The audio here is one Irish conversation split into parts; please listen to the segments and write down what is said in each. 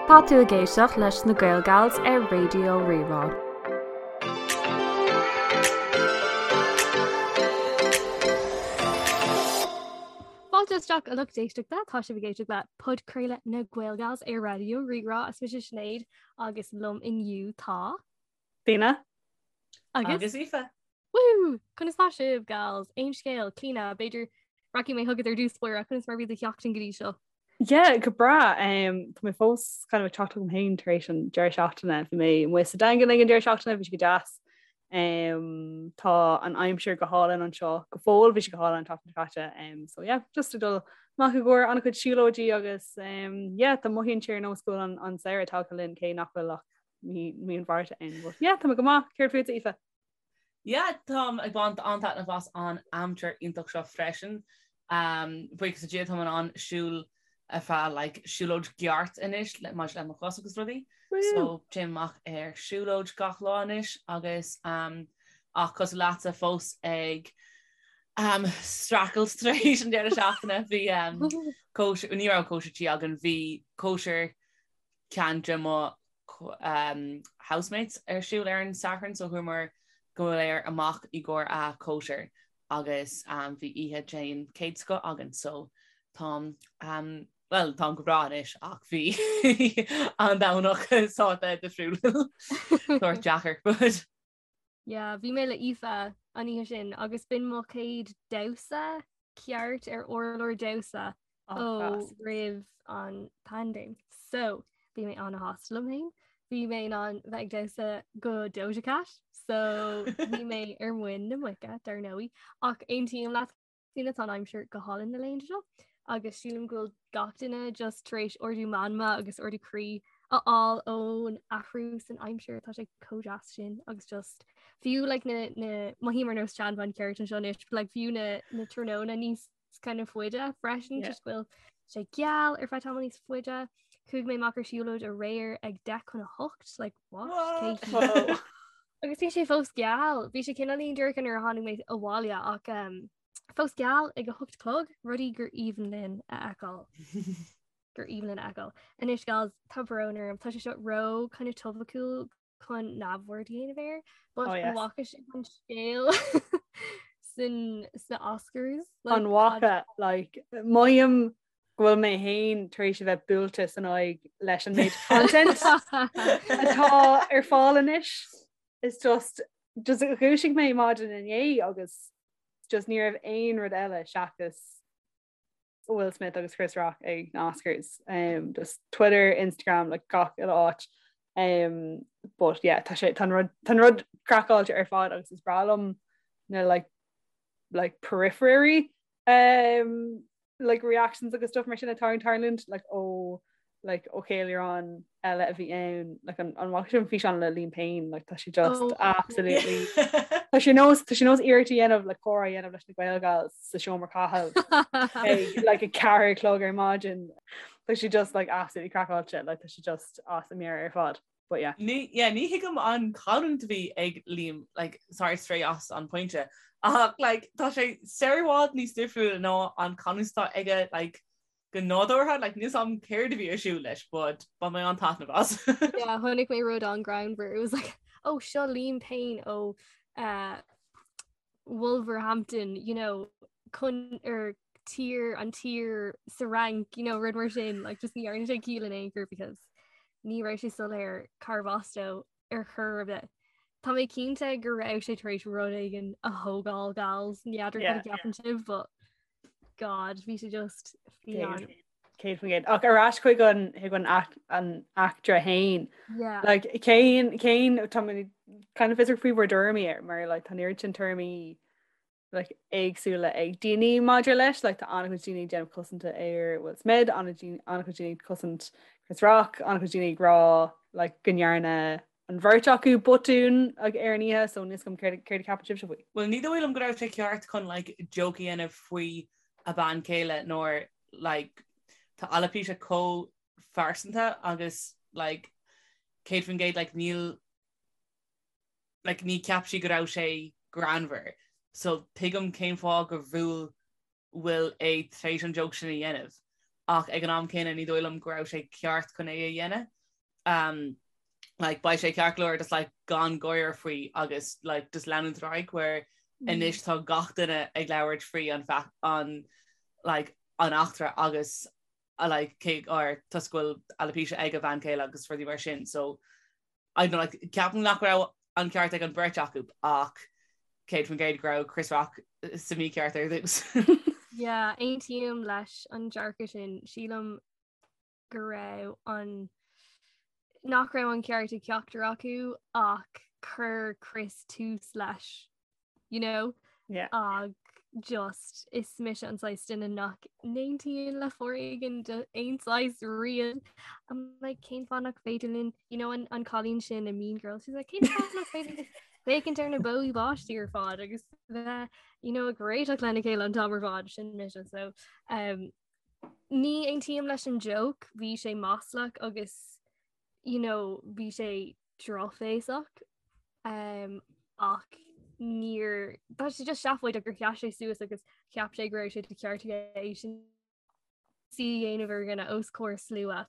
Tá tú ag éisteacht leis na Gaelgals ar Raidió Rí-Rá. Fáilte isteach a lucht éisteachta, tá sibh ag éisteacht le podchraoladh na Gaelgals ar Raidió Rí-Rá. Is mise Sinéad agus liom inniu tá. Clíona. Agus? Agus Aoife. Woo! Conas tá sibh, gals? Aon scéal, Clíona, b'fhéidir rachaidh mé chugat ar dtús báire, conas mar bhí do sheachtain go dtí seo? Yeah, go breá. Um, tá mé fós kind of ag teacht chugam féin tar éis an deireadh seachtaine. Bhí mé amuigh sa Daingean ag an deireadh seachtaine, bhí sé go deas. Um, tá an aimsir go hálainn anseo go fóill, bhí sé go hálainn an tseachtain seo caite. Um, so yeah, just ag dul amach i gcomhair an-chuid siúlóidí agus um, yeah, tá mothaíonn sé ar nós go bhfuil an, an samhradh tagtha linn cé nach bhfuil ach mí mí an Mhárta ann. But yeah, tá mé go maith. Céard fútsa, Aoife? Yeah, táim ag baint an-taitneamh as an aimsir iontach seo freisin. Um, buíochas le Dia táim in ann siúl ar feadh like, siúlóid ceart anois le maidir le mo chos agus rudaí. So téim amach ar siúlóid gach lá anois agus um, ach cosúil leatsa fós ag um, streachailt tar éis an deireadh seachtaine bhí um, cóisir, ní raibh cóisir tí againn, bhí cóisir ceann de mo housemates ar siúl ar an Satharn so chuamar go léir amach i gcomhair a cóisir agus bhí oíche den chéad scoth againn so táim bhuel táim go breá anois ach bhí an Domhnach sách difriúil sórt deacair but Yeah, bhí mé le Aoife an oíche sin agus b'in mo chéad damhsa ceart ar urlár damhsa ó roimh an paindéim. So bhí mé an-shásta liom féin. Bhí mé in ann bheith ag damhsa go Doja Cat, so bhí mé ar muin na muice dar ndóigh. Ach aontaím leat Clíona tá an aimsir go hálainn na laethanta seo agus sílim go bhfuil gach duine just tar éis ardú meanma agus ardú croí a fháil ón athrú san aimsir tá sé chomh deas sin agus just fiú like na na mothaím ar nós seanbhean ceart anseo anois but like fiú na na tráthnóna níos kind of faide freisin yeah. just go bhfuil sé geal ar feadh tamall níos faide. Chuaigh mé amach ar siúlóid aréir ag 10 chun 8 like what? what? Agus bhí sé fós geal, bhí sé cineáilín dorcha nuair a tháinig mé abhaile ach um, fós geal ag a 8 chlog, rudaí gur aoibhinn linn a fheiceáil. gur aoibhinn linn a fheiceáil. Anois gals tá brón orm, tá sé seo ró kind of topaiciúil chun neamhaird a dhéanamh air, but oh, yes. an bhfaca sibh an scéal san sna Oscars? Like, an bhfaca like, mothaím go bhfuil mé féin tar éis a bheith buailte san aghaidh leis an méid content atá ar fáil anois. It's just just dhúisigh mé maidin inné agus just ní raibh aon rud eile seachas Will Smith agus Chris Rock ag na Oscars. Um, just Twitter, Instagram, like gach uile áit. Um, but yeah, tá sé tá rud tá rud craiceáilte ar fad agus is breá liom na like like periphery um, like reactions agus stuff mar sin atá ag tarlúint like ó like ó cheiliúrán eile a bhí ann like an an bhfaca sibh an físeán le Liam Payne like tá sé just oh. absolutely tá sé nós tá sé nós iarracht a dhéanamh le comhrá a dhéanamh leis na Gaelgals sa seomra caithimh ag like a ceathair a chlog ar maidin tá sé just like absolutely craiceáilte like tá sé just as a meabhair ar fad. But yeah. Ní, yeah, ní thuigim an chanúint a bhí ag Liam, like, sorry, stray as an pointe, ach, like, tá sé sar i bhfad níos difriúla ná an canúint atá aige, like, go nádúrtha, like, níl 's a'm céard a bhí ar siúl leis, but bhain mé an-taitneamh as. Yeah, chonaic mé rud an-ghreannmhar. It was like, oh, seo Liam Payne ó uh, Wolverhampton, you know, chun ar tír an tír sa Fhrainc, you know, rud mar sin, like, just ní dhearna sé ciall in aon chor because ní raibh sé soiléir cárbh as dó ar chor ar bith. Tá mé cinnte go raibh sé tar éis rud éigin a thógáil gals, n'fheadar cad a cheapann sibh, but God, bhí sé just fiáin. 100%. Ach ar ais chuig an chuig an an eachtra fhéin. Yeah. Like cén cén tá mé kind of fiosrach faoi bhur dtuairimí air mar like tá an oiread sin tuairimí like éagsúla ag daoine maidir leis, like tá an-chuid daoine ag déanamh cosanta ar Will Smith, an-chuid daoine ag cosaint Chris Rock, an-chuid daoine ag rá like go ndearna an bheirt acu botún like, ar an oíche, so níl 's agam céard céard a ceapann sibhse faoi. Well ní dóigh liom go raibh sé ceart chun like joke a dhéanamh faoi a bean chéile nuair like tá alopecia chomh phearsanta agus like 100% like níl like ní cheap sí go raibh sé greannmhar so tuigim cén fáth gur bhuail Will é tar éis an joke sin a dhéanamh. ach ag an am céanna ní dóigh liom go raibh sé ceart chun é a dhéanamh. Um, like, beidh sé ceart go leor just like, gan gáire faoi agus like, just leanúint ar aghaidh where mm. anois tá gach duine ag labhairt faoi an an like, an eachtra agus a like, cé or toisc go bhfuil alopecia ag a bhean chéile agus rudaí mar sin so I don't know, like, ceapaim nach raibh an ceart ag an beirt acu ach 100% go raibh Chris Rock sa mícheart ar dtús. Yeah, aontaím leis an dearcadh sin sílim go raibh an nach raibh an ceart ag ceachtar acu ach chuir Chris tús leis you know yeah. ag just is mise an saghas duine nach n-aontaíonn le foréigean d'aon saghas riamh I'm like cén fáth nach féidir linn you know an, an cailín sin i Mean Girls she's like cén fáth nach féidir linn féachaint ar na bó báistí ar fad agus bheith you know ag réiteach lena chéile an t-am ar fad sin mise so um, Ní aontaím leis an joke, bhí sé maslach agus you know, bhí sé drochbhéasach um, ach níor tá sé just seafóideach gur sheas sé suas agus cheap sé go raibh sé de cheart aige é sin a dhéanamh ar dhuine os comhair slua.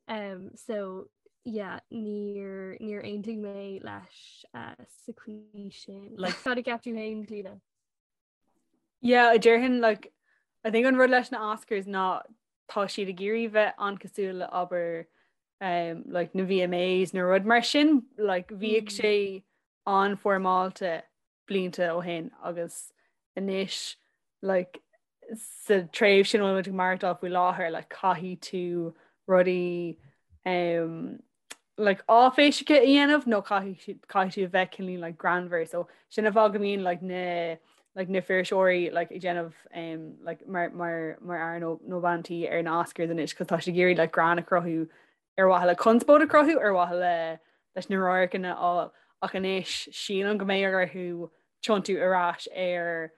Um, so yeah, níor níor aontaigh mé leis uh, sa chaoi sin. Like, Cad a cheap tú féin Clíona? Yeah, déarfainn like I think an rud leis na Oscars ná tá siad ag iarraidh bheith an-cosúil le abair um, like na VMAs nó rud mar sin like bhíodh mm. sé an-fhoirmeálta blianta ó shin agus anois like sa tréimhse sin bhfuil muid ag maireachtáil faoi láthair like caithfidh tú rudaí um, like áiféiseacha a dhéanamh nó caithfidh caithfidh tú a bheith cineál like greannmhar so sin an fáth go mbíonn like na like na fuirseoirí like ag déanamh um, like mar mar mar fhear nó nó bean tí ar na Oscars anois cos tá siad ag iarraidh like greann a chruthú ar mhaithe le conspóid a chruthú ar mhaithe le leis na radharcanna a fháil ach anois sílim go mbeidh orthu tiontú ar ais ar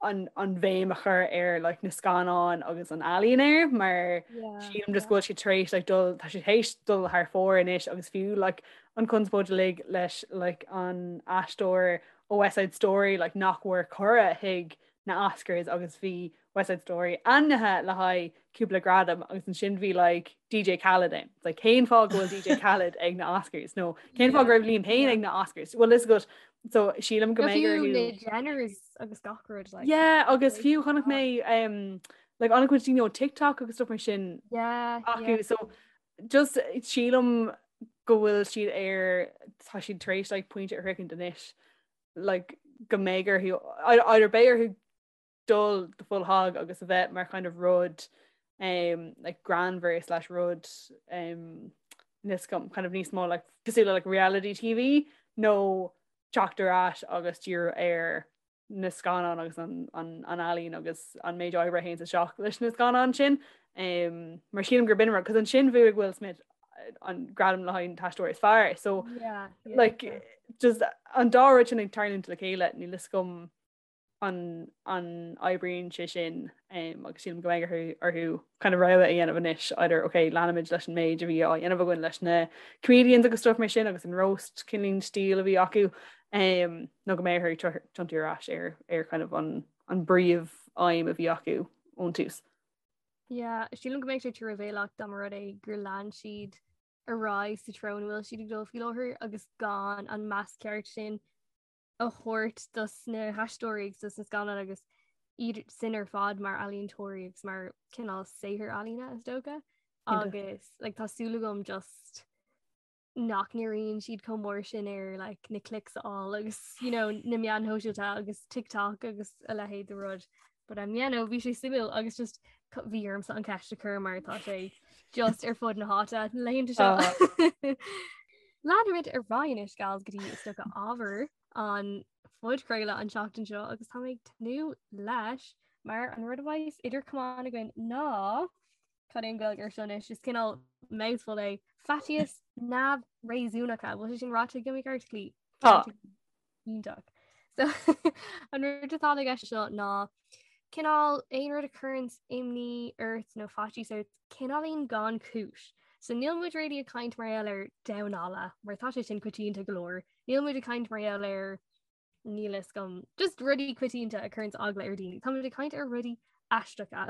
an an bhéim a chur ar like, na scannáin agus an ealaín air mar sílim just go bhfuil siad tar éis like, dul tá siad théis dul thar fóir anois agus fiú like, an conspóid uilig leis like, an aisteoir ó West Side Story like, nach bhfuair cuireadh chuig na Oscars agus bhí West Side Story ainmnithe le haghaidh cúpla gradam agus ansin bhí like, DJ Khaled ann. Like, cén fáth go bhfuil DJ Khaled ag na Oscars nó cén fáth go raibh Liam Payne ag na Oscars? Well is go so sílim go mbeidh orthu na Jenners agus gach rud like yeah agus fiú chonaic mé um, like an-chuid daoine ó TikTok agus stuff mar sin yeah acu yeah. so just sílim go bhfuil siad ar tá siad tar éis like pointe a shroichint anois like go mbeidh orthu either beidh orthu dul the full hog agus a bheith mar kind of rud um, like greannmhar slash rud um, níos kind of níos mó like cosúil le like reality TV nó teacht ar ais agus díriú ar na scannáin agus an, an, an ealaín agus an méid oibre a théann isteach leis na scannáin sin. Um, mar sílim gur b'in rud, cos ansin bhuaigh Will Smith an gradam le haghaidh an t-aisteoir is fearr. So yeah, yeah, like yeah. just an dá rud sin ag tarlúint le chéile níl a fhios agam an an oibríonn sé sin agus sílim go mbeidh orthu kind of rogha a dhéanamh anois either ok leanfaimid leis an méid a bhí á dhéanamh againn leis na comedians agus stuff mar sin agus an roast cineál stíl a bhí acu nó go mbeidh orthu tiontú ar ais ar ar kind of an an bpríomh aidhm a bhí acu ón tús. Yeah, sílim go mbeidh sé truamhéalach dá mba rud é gur lean siad ar aghaidh sa treo ina bhfuil siad ag dul faoi láthair agus gan an meas ceart sin a thabhairt dos na haisteoirí agus dos na scannáin agus iad sin ar fad mar ealaíontóirí agus mar cineál saothar ealaíne is dócha agus like, tá súil agam just nach ndíríonn siad chomh mór sin ar like, na clicks a fháil agus you know, na meáin shóisialta agus TikTok agus a leithéid de rud. But um, yeah, no, bhí sé suimiúil agus just bhí ormsa an ceist a chur mar tá sé just ar fud na háite na laethanta seo. Leanfaimid ar aghaidh anois gals go dtí is dócha ábhar an phodchraoladh an tseachtain seo agus tá mé ag tnúth leis mar an rud a bheas idir chamáin againn ná cad é an Ghaeilge air seo anois is cineál mouthful é faitíos neamhréasúnacha bhfuil sé sin ráite agam i gceart Clí? Tá. Iontach. So an rud atá i gceist seo ná cineál aon rud a chuireann imní ort nó faitíos ort cineáilín gan cúis. So níl muid really ag caint mar gheall ar damhán alla mar tá sé sin coitianta go leor. Níl muid ag caint mar gheall ar níl a fhios agam just rudaí coitianta a chuireann eagla ar daoine. Tá muid ag caint ar rudaí aisteacha.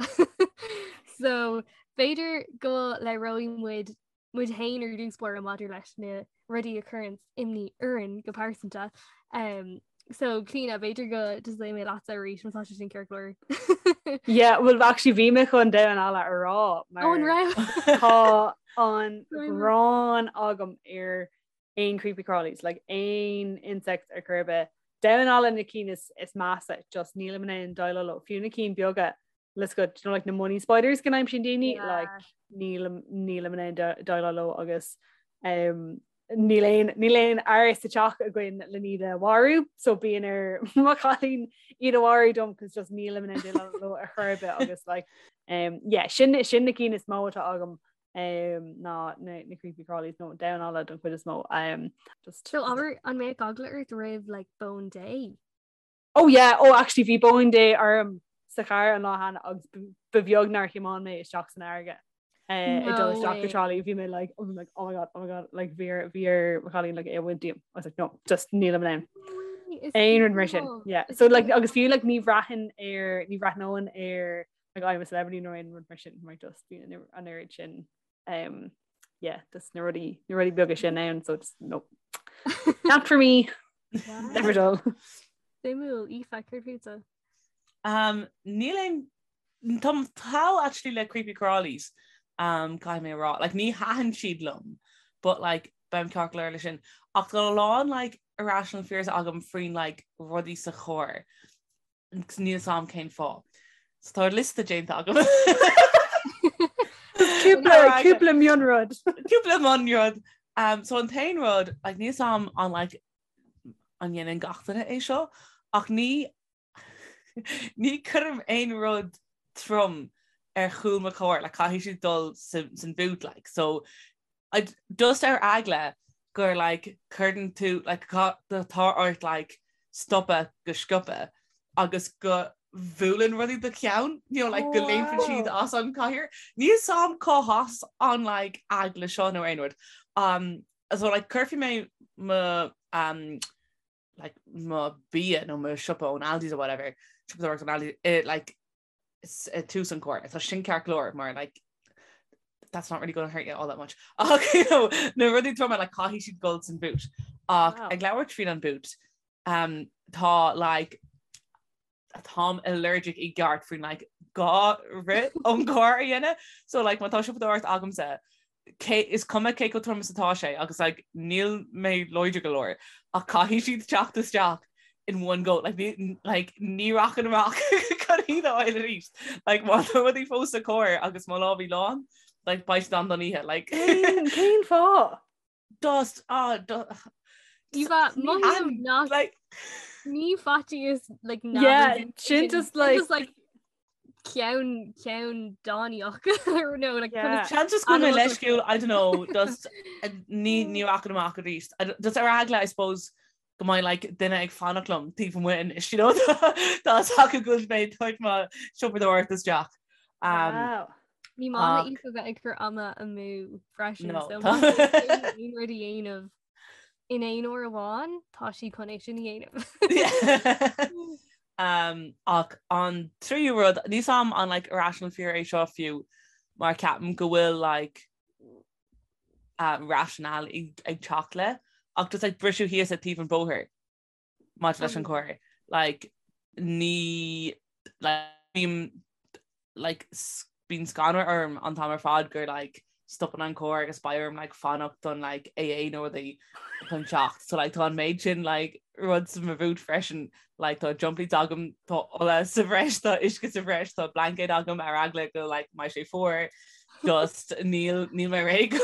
So b'fhéidir go labhróidh muid muid féin ar dtús báire maidir leis na rudaí a chuireann imní orainn go pearsanta. Um, so Clíona b'fhéidir go dtosóidh mé leatsa arís má tá sé sin ceart go leor. Yeah, well actually bhí mé chun damhán alla a rá mar Ó, an raibh? tá an ghráin agam ar aon creepy crawlies, like aon insects ar chor ar bith. Damhán alla na cinn is, is measa, just nílim in ann déileáil leo. Fiú na cinn beaga let's go, you know, like na money spiders go n-aimsíonn daoine, Yeah. like nílim nílim in ann déileáil leo agus um, níl aon níl aon fhear sa teach againn le iad a mharú, so bíonn ar mo chailín iad a mharú dom cos just nílim in ann déileáil leo ar chor ar bith agus like um, yeah, sin sin na cinn is mó atá agam um, ná na, na creepy crawlies nó damhán alla don chuid is mó um, just So abair an mbeadh eagla ort roimh like bóin Dé? Oh yeah, oh actually bhí bóin Dé orm sa charr an lá cheana agus ba bheag nár thiomáin mé isteach san fharraige. Eh, ag dul isteach go Trá Lí bhí mé like oh, like oh my god oh my god like bhí ar bhí ar mo chailín like é a bhaint díom. I was like no just nílim in ann. Aon rud mar sin yeah so like agus fiú like ní bhraithfinn ar ní bhreathnóinn ar like I'm a celebrity nó aon rud mar sin mar just bíonn an oiread sin um yeah just na rudaí na rudaí beaga sin ann so just no not for me never dull Suimiúil Aoife céard fútsa? Um, níl aon Táim thall actually le creepy crawlies um, caithfidh mé a rá. Like, ní thaitin siad liom, but like, beim ceart go leor le sin. Ach tá a lán like, irrational fears agam faoin like, rudaí sa charr. Níl fhios a'm cén fáth. So tá liosta déanta agam. Cúpla cúpla mionrud. Cúpla mionrud. Um, so an t-aon rud, like, níl fhios a'm an like, an dhéanann gach duine é seo, ach ní ní cuirim aon rud trom ar chúl mo chairr, like, caithfidh siad dul san boot, like, so I, just ar eagla gur like cuireann tú like tá ort like stopadh go sciobtha agus go bhuaileann rudaí do cheann, you know, like go léimfeann siad as an cathaoir. Níl fhios a'm cá has an like eagla seo nó aon rud. Um, so like cuirfidh mé mo um, like mo bia nó mo siopa ón Aldi's or whatever, siopadóireacht ón Aldi's, eh, like i tús an carr. Tá sin ceart go leor mar like that's not really going to hurt you all that much. Ach you know, na rudaí troma like caithfidh siad dul san boot. Ach wow. ag labhairt faoin an boot, um, tá like táim allergic i gceart faoin like dhá rith ón gcarr a dhéanamh. So like má tá siopadóireacht agamsa cé, is cuma cé chomh trom is atá sé agus like níl mé láidir go leor ach caithfidh siad teacht isteach in one go like ní, like ní rachainn amach chun iad a fháil arís like má tá rudaí fós sa charr agus mo lámha lán like beidh siad ann don oíche like Cén cén fáth? Just ah do Aoife, mothaím nach like ní faitíos like Yeah, sin just like just like ceann ceann dánaíoch no like Yeah. Seans just go bhfuil mé Animal leisciúil, I don't know, just eh, ní ní rachainn amach arís. I don't- Just ar eagla, I suppose, go mbeidh like duine ag fanacht liom taobh amuigh anois, you know, tá a fhios acu go bhfuil mé ag tabhairt mo siopadóireacht isteach. Um, Wow. Ní maith Ach- le Aoife bheith ag cur ama amú freisin No, so tá- má tá aon rud a dhéanamh in aon uair amháin tá sí chun é sin a dhéanamh. Um, ach an tríú rud, níl fhios a'm an like irrational fear é seo fiú mar ceapaim go bhfuil like uh, rationale ag, ag teacht le ach just like briseadh thíos at taobh an bhóthair maidir leis an carr. Like ní like bím like bíonn scanradh orm an t-am ar fad gur like stopann an carr agus beidh orm like fanacht don like AA nó rudaí chun teacht. So like tá an méid sin like rud sa mo bhoot freisin like tá jump leads agam tá ola sa bhreis tá uisce sa bhreis tá blaincéad agam ar eagla go like mbeidh sé fuar just níl níl mé réidh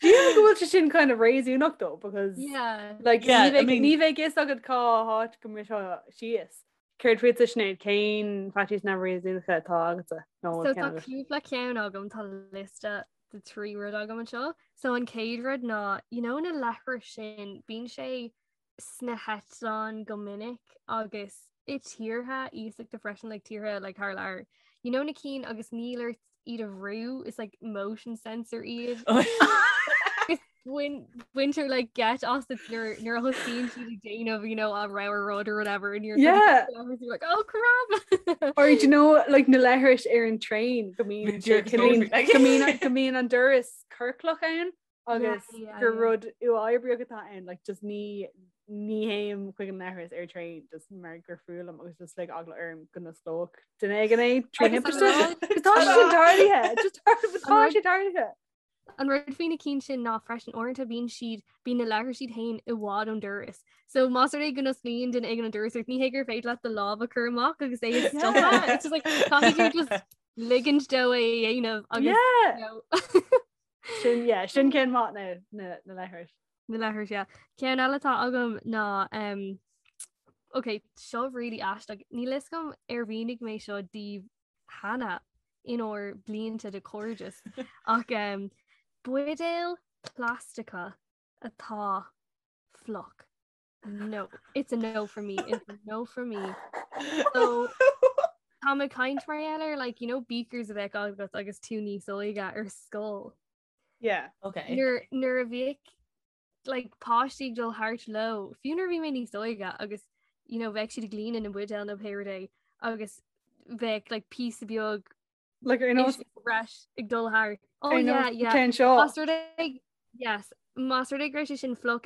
Sílim go bhfuil sé sin kind of réasúnach though because Yeah. like Yeah, ní I bheidh mean- ní bheidh fhios agat cá háit go mbriseann síos. Céard fútsa Sinéad cén faitíos neamhréasúnacha atá agatsa nó So bhfuil tá ceann agat? cúpla ceann agam tá liosta de trí rud agam anseo. So an chéad rud ná you know na leithris sin bíonn sé sna heitleáin go minic agus i tíortha iasachta freisin like tíortha like thar lear. You know na cinn agus níl ort iad a bhrú is like motion sensor iad. Bhain baintear like geit asat nuair nuair a thosaíonn siad ag déanamh you know a rogha rud or whatever and you're Yeah. you're like oh crap Or do you know like na leithris ar an train go mbíonn Bhí go mbíonn- like- go mbíonn go mbíonn an doras ciorclach ann agus yeah, gur yeah. rud uathoibríoch atá ann like just ní ní théim chuig an leithreas ar train just mar gur fuath liom agus just like eagla orm go n-osclódh duine éigin é trí Agus an thimpiste. rud- Tá sé sin tarlaithe just tá rud- sé tarlaithe. An rud faoi na cinn sin ná freisin uaireanta bíonn siad bíonn na leithris iad féin i bhfad ón doras. So más rud é go n-osclaíonn duine éigin an doras ort ní hé gur féidir leat do lámh a chur amach agus é a stopadh. It's just like caithfidh tú just ligint dó é a dhéanamh agus Yeah. you know, Sin yeah, sin ceann maith na na na leithris. na leithris yeah. Ceann eile atá agam ná um, Ok, seo really aisteach. Níl fhios agam ar mhínigh mé seo daoibh cheana inár blianta de chairdeas ach um, buidéil plaisteacha atá fliuch. No, it's a no for me. It's a no for me. So tá mé ag caint mar gheall ar like you know beakers a bheadh agat agus tú níos óige ar scoil. Yeah. Okay. Nuair nuair a bhíodh like páistí ag dul thart leo, fiú nuair a bhí mé níos óige agus you know bheadh siad ag líonadh na mbuidéal nó pé rud é agus bheadh like píosa beag Like ar nós uisce breis ag dul thart. Oh ar yeah, nós yeah. ceann seo. Más rud é yes, más rud é go raibh sé sin fliuch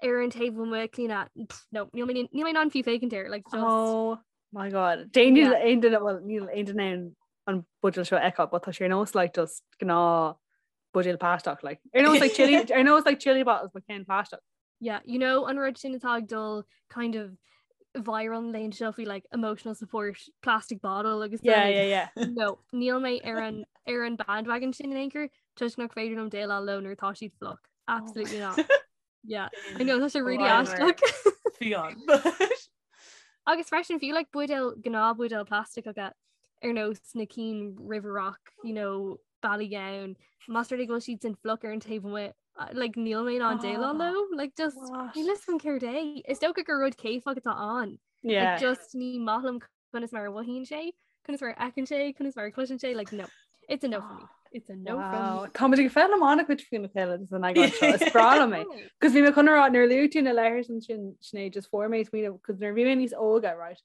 ar an taobh amuigh Clíona, pff, no, níl mé níl mé in ann fiú féachaint air, like just Oh my god. Déan níl Yeah. aon duine well níl aon duine in ann an buidéal seo a fheiceáil, but tá sé ar nós like just gnáth buidéal plaisteach like ar nós like chili ar nós like chili bottles but ceann plaisteach. Yeah, you know an rud sin atá ag dul kind of viral an laethanta seo faoi like emotional support plastic bottle agus Yeah, like, yeah, yeah. No, níl mé ar an ar an bandwagon sin in aon chor toisc nach féidir liom déileáil leo nuair atá siad fliuch. Absolutely not. Yeah, I know tá sé really Wow. aisteach. Fiáin. Agus freisin fiú like buidéal gnáth buidéal plaisteacha ar nós na cinn River Rock, you know, Ballygowan, más rud é go bhfuil siad sin fliuch ar an taobh amuigh, like níl mé in ann déileáil leo, like just What? níl fhios agam céard é. Is dócha gur rud céifeach atá ann. Yeah. Like just ní maith liom conas mar a mhothaíonn sé, conas mar a fheiceann sé, conas mar a chloiseann sé, like no. It's a no for me. It's a no Wow. from Tá muid ag foghlaim an-chuid faoina chéile san eagrán seo. Is breá liom é. me. Cos bhí mé chun a rá nuair a luaigh tú na leithris ansin Sinéad just fuair mé smaoineamh cos nuair a bhí mé níos óige right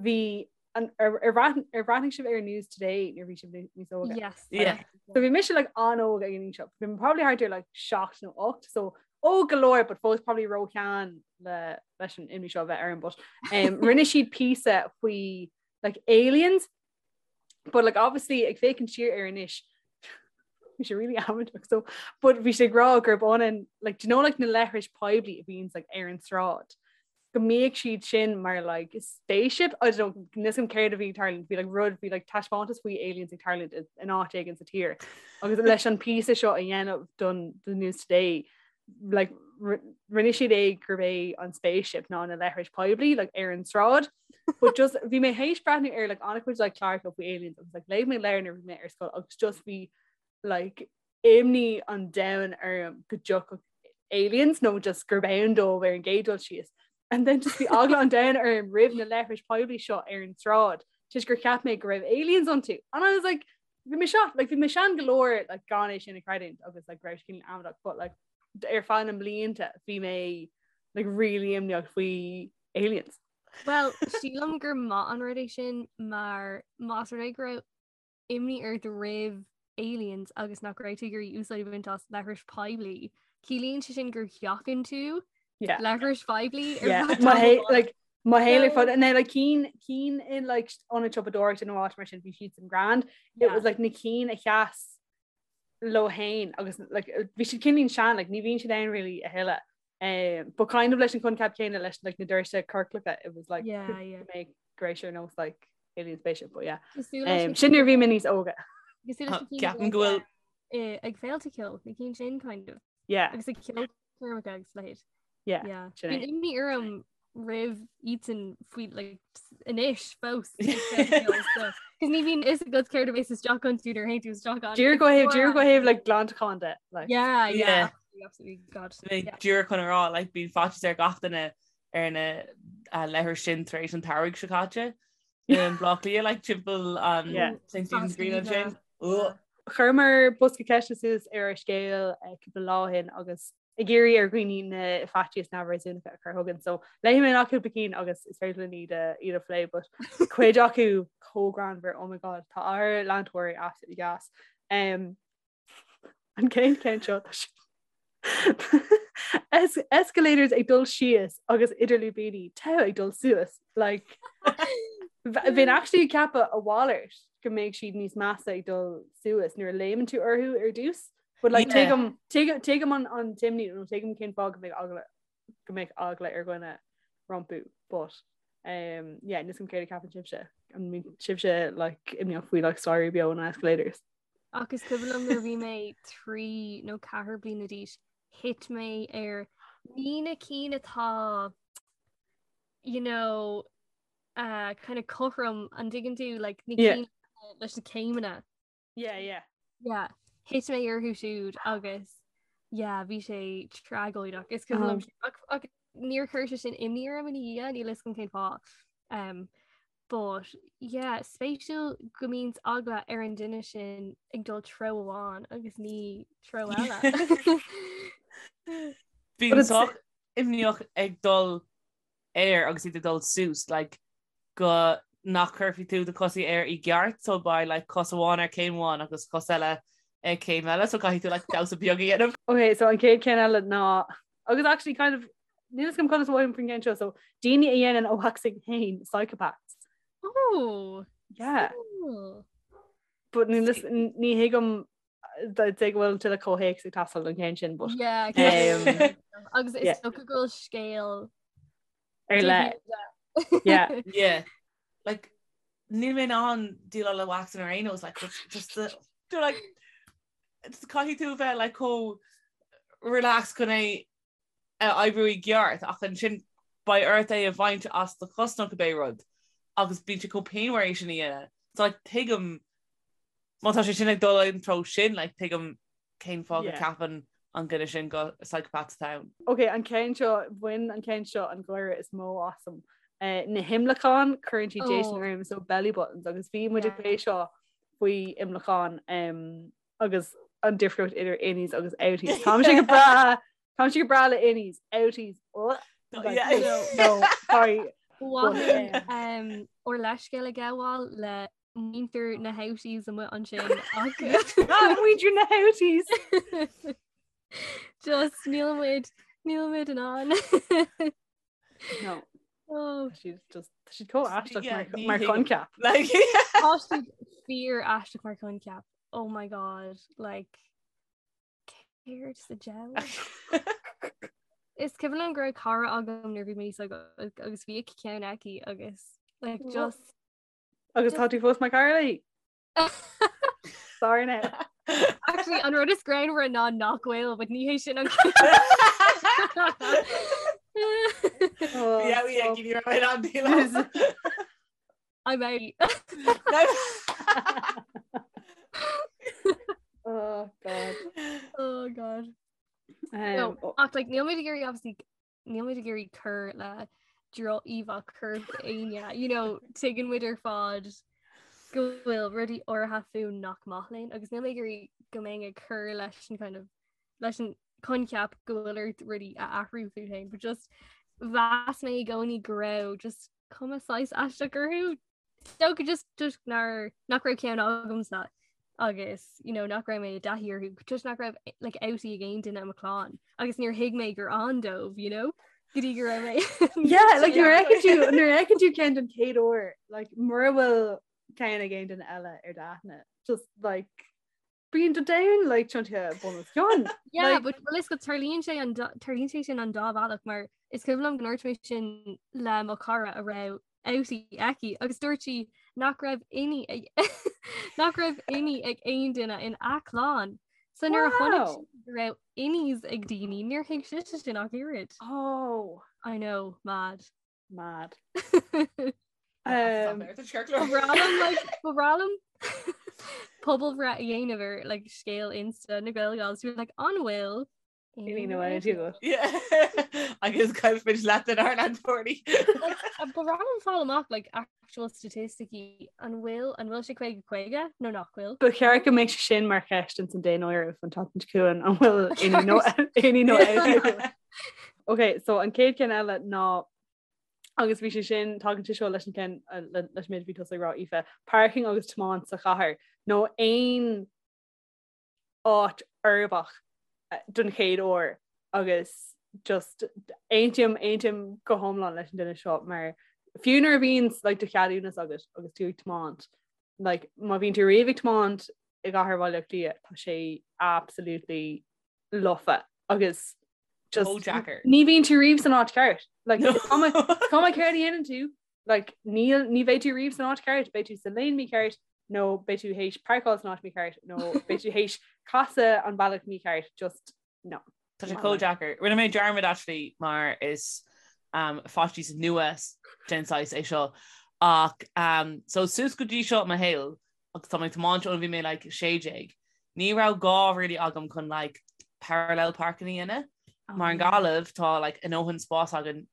bhí an ar ar bhreath- ar bhreathnaigh sibh ar News Today nuair a bhí sibh níos óige. Yes. Yeah. So bhí mise like an-óg ag an aois seo. Bhí mé probably thart ar like 7 nó 8 so óg go leor but fós probably róshean le leis an imní seo a bheith orm but um, rinne siad píosa faoi like aliens but like obviously ag féachaint siar air anois bhí sé really amaideach so but bhí sé ag rá gurb ionann like do you know like na leithris poiblí a bhíonns like ar an tsráid go mbíodh siad sin mar like spaceship I don't know níl 'fhios agam céard a bhí ag tarlúint bhí like rud bhí like taispeántas faoi aliens ag tarlúint in áit éigin sa tír agus leis an píosa seo a dhéanamh don the News Today like rinne siad é gurb é an spaceship ná na leithris poiblí like ar an tsráid but just bhí mé théis breathnú ar like an-chuid like cláracha faoi aliens agus like léigh mé leabhar nuair a bhí mé ar scoil agus just bhí like imní an domhain orm go dtiocfadh aliens nó just gurb ann dóibh ar an gcéad dul síos. And then just bhí eagla an domhain orm roimh na leithris poiblí seo ar an tsráid toisc gur cheap mé go raibh aliens iontu. And I was like bhí mé seo like bhí mé sean go leor like gan é sin a chreidiúint agus like raibh sé amaideach but like ar feadh na mblianta bhí mé like really imníoch faoi aliens. Well, sílim gur maith an rud é sin mar más rud é go raibh imní ort roimh aliens agus nach raibh tú ag iarraidh úsáid a bhaint as leithris poiblí. Ciallaíonn sé sin gur sheachain tú leithris phoiblí like mo shaol ar fad na like cinn cinn in like ionad siopadóireachta nó áit mar sin bhí siad sin grand. It was like na cinn a sheas leo féin agus like bhí siad cineál sean like ní bhíonn siad ann really a thuilleadh. Um, but kind of leis an coincheap céanna leis like na doirse ciorclacha it was like yeah, yeah. make great ar nós like alien spaceship but yeah. Um, sin nuair a bhí mé níos óige. Ceapaim go bhfuil eh, ag féilte ceoil na cinn sin kind of. Yeah. Agus ag ceolchoirmeacha agus leithéid. Yeah. Yeah. Sin é. Bíonn imní orm roimh iadsan faoi like anois fós. Cos ní bhíonn fhios agat céard a bheas isteach iontu nuair a théann tú isteach ann. Díreach ó thaobh díreach ó thaobh like glantachán de like. Yeah, yeah. Yeah. Absolutely, absolutely. God. Bhí Yeah. díreach chun a rá like bíonn faitíos ar gach duine ar na uh, leithris sin tar éis an tsamhraidh seo caite. In Bleá Cliath like timpeall an Yeah. St. Stephen's Green Stephen's, ansin. Ugh. Chuireamar bosca ceiste suas ar ár scéal cúpla lá ó shin agus ag iarraidh ar dhaoine na faitíos neamhréasúnacha a chur chugainn. So léifidh mé amach cúpla cinn agus is féidir linn iad a iad a phlé, but cuid acu chomh greannmhar, oh my god, tá ár leantóirí absolutely gas. Um, an chéad cheann seo tá Es escalators ag dul síos agus idir lúibíní togha ag dul suas like bheinn actually ag ceapadh a mhalairt go mbeidh siad níos measa ag dul suas nuair a léimeann tú orthu ar dtús. But like tuigim tuigim an an t-imní nó tuigim cén fáth go mbeidh eagla go mbeidh eagla ar dhuine rompu but um, yeah, níl a fhios agam céard a cheapann sibhse an mbíonn sibhse like imníoch faoi like staighrí beo nó escalators. Ach is cuimhin liom nuair a bhí mé 3 nó 4 bliana d'aois, thit mé ar ní na cinn atá you know uh, kind of cothrom an dtuigeann tú like na Yeah. cinn leis na céimeanna. Yeah, yeah. Yeah, thit mé orthu siúd agus yeah, bhí sé tragóideach. Is cuimhin liom sin. Ach, ach níor chuir sé sin imní orm ina dhiaidh, níl a fhios agam cén fáth. Um, but yeah, spéisiúil go mbíonn eagla ar an duine sin ag dul treo amháin agus ní treo eile. Bím sách imníoch ag dul air agus iad ag dul suas like go nach cuirfidh tú do chosaí air i gceart so beidh like cos amháin ar céim amháin agus cos eile ag céim eile so caithfidh tú like damhsa beag a dhéanamh. Ok, so an chéad cheann eile ná agus actually kind of níl a fhios agam conas a mhothaím faoin gceann seo so daoine a dhéanann a waxing féin psychopaths. Oh! Yeah. Cool. But ní ní thuigim de go bhfuil tuilleadh comhthéacs ag teastáil don cheann sin but Yeah, um, agus is yeah. dócha go bhfuil scéal ar leith. Yeah. Yeah. Like níl mé in ann déileáil le waxing ar aon nós like just just the do like just caithfidh tú bheith like chomh relaxed chun é a oibriú i gceart ach ansin beidh ort é a bhaint as do chos nó cibé rud agus bíonn sé chomh pianmhar é sin a dhéanamh. So like tuigim má tá sé sin ag dul an treo sin like tuigim cén fáth go ceapann an duine sin go psychopath atá ann. Ok, an ceann seo, bhain an ceann seo an gáire is mó asam. Uh, na himleacáin cuireann siad déistin oh. orm so belly buttons agus bhí muid ag plé seo faoi imleacáin um, agus an difríocht idir innies agus outies. Táimse go breá Táimse go breá le innies, outies. Oh, like, yeah. no, sorry. Bhfuil um, ár leithscéal a ghabháil le muintir na houties amuigh ansin ach Muintir na houties. Just níl muid níl muid in ann. No. Oh. She's just she's chomh aisteach Yeah, mar ní mar thuigim. choincheap. Like, Tá siad fíor aisteach mar choincheap. Oh my god, like céard sa diabhal? Is cuimhin liom go raibh cara agam nuair bhí mé níos óige agus bhí ceann aici agus like just Agus tá tú fós mar chara léi? Sorry now. Actually, an rud is greannmhaire ná nach bhfuil, but ní hé sin an Oh, Yeah, we stop. give you right on deal. I'm out. Oh god. Oh god. Um, No, oh, ach like níl muid ag iarraidh obviously níl muid ag iarraidh cur le droch-íomhá choirp éinne, you know, tuigeann muid ar fad go bhfuil rudaí áirithe fúinn nach maith linn agus níl mé ag iarraidh go mbeinn ag cur leis an kind of leis an coincheap go bhfuil ort rudaí a athrú fút féin, but just mheas mé i gcónaí go raibh just cuma saghas aisteach orthu. Dócha just toisc nár nach raibh ceann agamsa agus you know, nach raibh mé i dtaithí orthu, toisc nach raibh like, outie ag aon duine i mo chlann agus níor thuig mé gur ann dóibh, you know? go dtí go raibh mé Yeah, like nuair a fheiceann tú nuair a fheiceann tú ceann den chéad uair, like mura bhfuil ceann ag aon duine eile ar d'aithne, just like bíonn do domhan like tiontaithe bun os cionn. Yeah, Like- but well, is go tarlaíonn sé an dá- tarlaíonn sé sin an dá bhealach mar is cuimhin liom go ndúirt mé sin le mo chara a raibh outie aici agus dúirt sí nach raibh innie ag nach raibh innie ag aon duine in a clann. So nuair a chonaic Wow. sí go raibh innies ag daoine níor thuig sise sin ach oiread. Oh, I know, mad. mad. Um, Ba bhreá liom pobalbhreith a dhéanamh ar like, scéal Insta na Gael Gals like, an bhfuil? Aon ní nó aontaí agat. Agus caillfimid leath den ár leantóirí. Ba mhaith liom fáil amach like actual staitisticí an bhfuil an bhfuil sé 50 50 nó nach bhfuil. Ba cheart go mbeadh sé sin mar cheist ins an daonáireamh an tseachtain seo chugainn an bhfuil aon ní nó aon ní nó aontaí agat. Ok, so an chéad cheann eile ná agus bhí sé sin tagann sé seo leis an ceann leis an méid a bhí tusa ag rá Aoife, parking agus tiomáint sa chathair nó aon áit uirbeach don chéad uair agus just aontaím aontaím go hiomlán leis an duine seo mar fiú nuair a bhíonn like, do cheadúnas agat agus tú ag tiomáint like, má bhíonn tú riamh ag tiomáint i gcathair Bhaile Átha Cliath tá sé absolutely lofa agus just Chomh deacair. ní bhíonn tú riamh san áit ceart like, is cuma cuma céard a dhéanann tú Like, níl, ní bheidh tú riamh san áit ceart, beidh tú sa lane mícheart, nó beidh tú théis páirceáil san áit mícheart, nó beidh tú théis casadh an bealach mícheart, just no. Tá sé chomh deacair. Rinne mé dearmad actually mar is um, faitíos nua den saghas é seo ach um, so suas go dtí seo i mo shaol agus tá mé ag tiomáint ó bhí mé like 16, ní raibh gá really agam chun like parallel parking a dhéanamh. Mar i nGaillimh tá like a ndóthain spás againn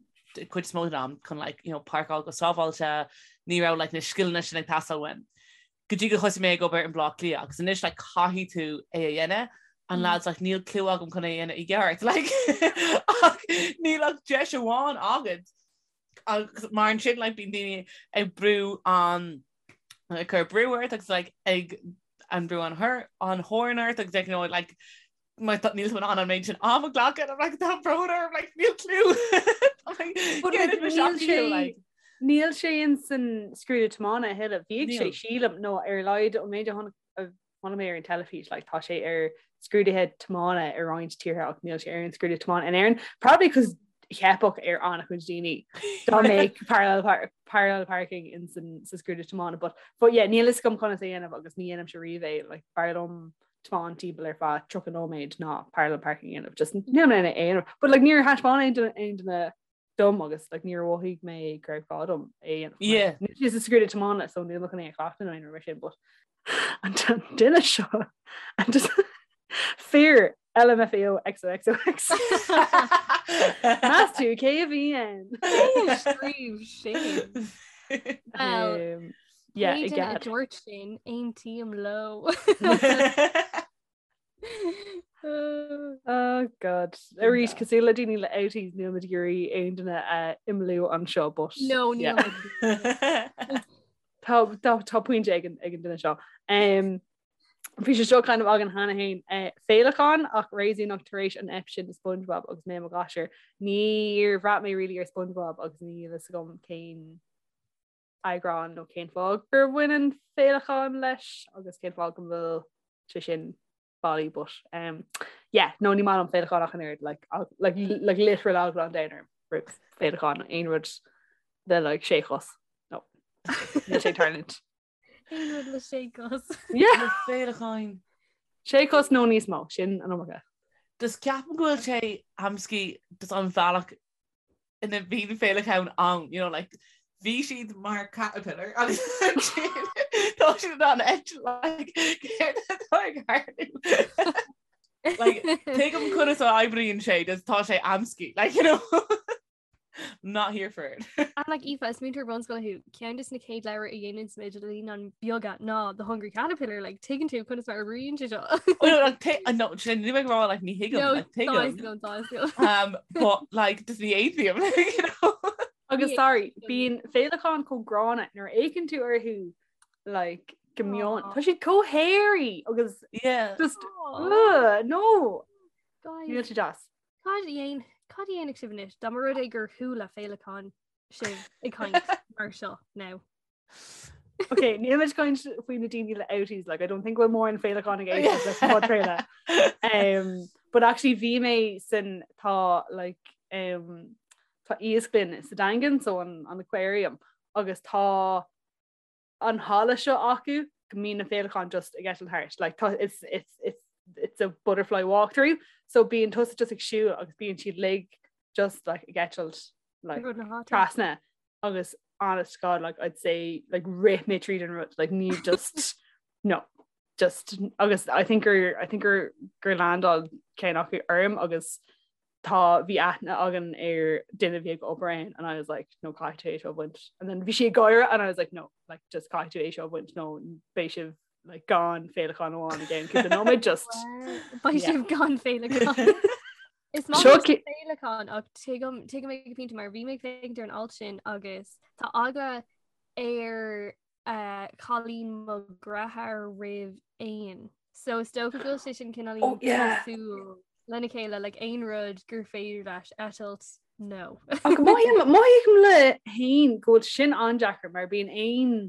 cuid is mó den am chun like you know páirceáil go sábháilte, ní raibh like na scileanna sin ag teastáil uaim. Go dtí go thosaigh mé ag obair in Baile Átha Cliath agus anois like caithfidh tú é a dhéanamh and lads like níl clue agam chun é a dhéanamh i gceart like ach níl ach deis amháin agat agus mar ansin like bíonn daoine ag brú an ag cur brú ort agus like ag an brú an thor an horn ort agus like you know like mar tá níl tú in ann an méid sin am a ghlacadh I'm like tá brón orm like níl clue But, like, níl sé níl sé in san scrúdú tiomána a thuilleadh. Bhíodh sé sílim nó ar a laghad an méid a chonaic a chonaic mé ar an teilifís like tá sé ar scrúduithe tiomána i roinnt tíortha ach níl sé ar an scrúdú tiomána in Éirinn. Probably cos theipfeadh ar an-chuid daoine dá mbeadh parallel par parallel parking in san sa scrúdú tiomána but but yeah níl fhios agam conas é a dhéanamh agus ní dhéanaimse riamh é like b'fhearr liom tiomáint timpeall ar feadh 30 nóiméad ná parallel parking a dhéanamh just níl mé in ann é a dhéanamh but like níor thaispeáin aon duine aon duine dom agus like níor mhothaigh mé go raibh gá dom é a dhéanamh. Yeah. Níl sé sa scrúdú tiomána so níl mé chun é a chleachtadh nó aon rud mar sin but an duine seo and just fear LMFAO XOXOX. Meas tú cé a bhí ann? Scríobh sin. Well, Um, yeah, pé i duine a gcead. dúirt sin, aontaím leo. Oh God. Arís cosúil le daoine le outies níl muid ag iarraidh aon duine a imeallú anseo but No, níl yeah. muid. Tá tá tá pointe ag an ag an duine seo. Um, Bhí sé seo kind of againn cheana féin eh, féileacáin ach réasúnach tar éis an ep sin de SpongeBob agus mé i mo ghasúr. Níor bhraith mé really ar SpongeBob agus níl fhios agam cén eagrán nó cén fáth gur bhain an féileacán leis agus cén fáth go bhfuil sé sin bailí but um, yeah, no ní maith liom féileacáin ach an oiread like, like, like literal eagla an domhain orm roimh féileacáin aon rud le like sé chos no níl sé ag tarlúint. Aon rud le sé cos. Yeah. Na féileacáin. Sé chos nó níos mó sin an iomarca. Just ceapaim go bhfuil sé amscaí just an bhealach ina bhíonn féileacáin ann, you know, like, bhí siad mar caterpillar agus ansin tá siad in ann eitilt, like, céard atá ag tarlú? Like, tuigim conas a oibríonn sé, just tá sé amscaí, like, you know, not here for it. And like Aoife, is múinteoir bunscoile thú, ceann de na chéad leabhair a dhéanann muid le naíonáin bheaga ná The Hungry Caterpillar, like tuigeann tú conas mar a oibríonn sé seo. Oh, no, like, t- uh, no, sin ní bheidh rá like ní thuigim, No, like, tuigim. tá tá tá. Um, but like just ní aontaím, like, you know. Agus Ní sorry, aontaím. bíonn féileacáin chomh gránna nuair a fhéachann tú orthu like go mion. Aw. Tá siad chomh hairy agus Yeah. just Aw, ugh, no, guys, níl sé deas. Cad a dhéan cad a dhéanfadh sibh anois dá mba rud é gur chuala féileacán sibh ag caint mar seo now? Ok, níl muid caint faoi na daoine le outies, like, I don't think bhfuil mórán féileacán ag éisteacht leis an podchraoladh. Um, but actually bhí mé san tá like um, tá iasclann sa Daingean so an, an aquarium agus tá an halla seo acu go mbíonn na féileacáin just ag eitilt thart like tá it's it's it's it's a butterfly walk through so bíonn tusa just ag siúl agus bíonn siad uilig just like ag eitilt like Rud na háite. trasna agus honest to God like I'd say like rith mé tríd an rud like ní just no. just agus I think gur I think gur gur landáil ceann acu orm agus tá bhí aithne againn ar duine a bhí ag obair ann and I was like no caithfidh tú é seo a bhaint and then bhí sí ag gáire and I was like no like just caithfidh tú é seo a bhaint nó beidh sibh like gan féileacán amháin again cúpla nóiméad just Beidh sibh gan féileacán. Is maith liom féileacán ach tuigim tuigim ag pointe mar bhí mé ag féachaint ar an alt sin agus tá eagla ar cailín mo dheartháir roimh éin. So is dócha go bhfuil sé sin cineál oh, yeah. cosúil lena chéile like aon rud gur féidir leis eitilt no. Ach mothaím le héin go bhfuil sin an-deacair mar bíonn éin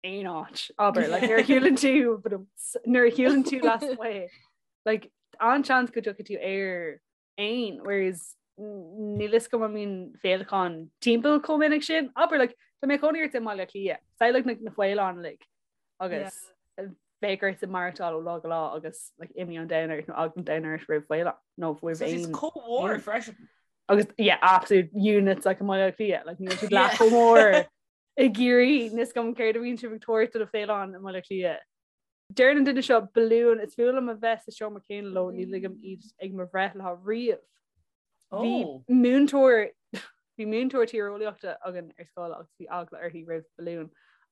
aon áit abair like nuair a shiúlann tú nuair a shiúlann tú lasmuigh like an-seans go dtiocfaidh tú ar éan whereas níl fhios agam an mbíonn féileacáin timpeall chomh minic sin. Abair like tá mé cónaí ort i mBaile Átha Cliath, samhlaigh na na faoileáin uilig agus bheadh ort maireachtáil ó lá go lá agus like imní an domhain ort nó eagla an domhain ort roimh faoileán nó roimh éin. Is chomh mór freisin. Agus yeah absolute units like i mBaile Átha Cliath like níl siad leath chomh mór i gCiarraí níl fhios agam céard a bhíonn sibh ag tabhairt do na faoileáin i mBaile Átha Cliath. Deir an duine seo balúin, is fuath liom a bheith sa seomra céanna leo, ní ligim iad ag mo bhreithlá riamh. Bhí múinteoir bhí múinteoir tíreolaíochta againn ar scoil agus bhí eagla uirthi roimh balúin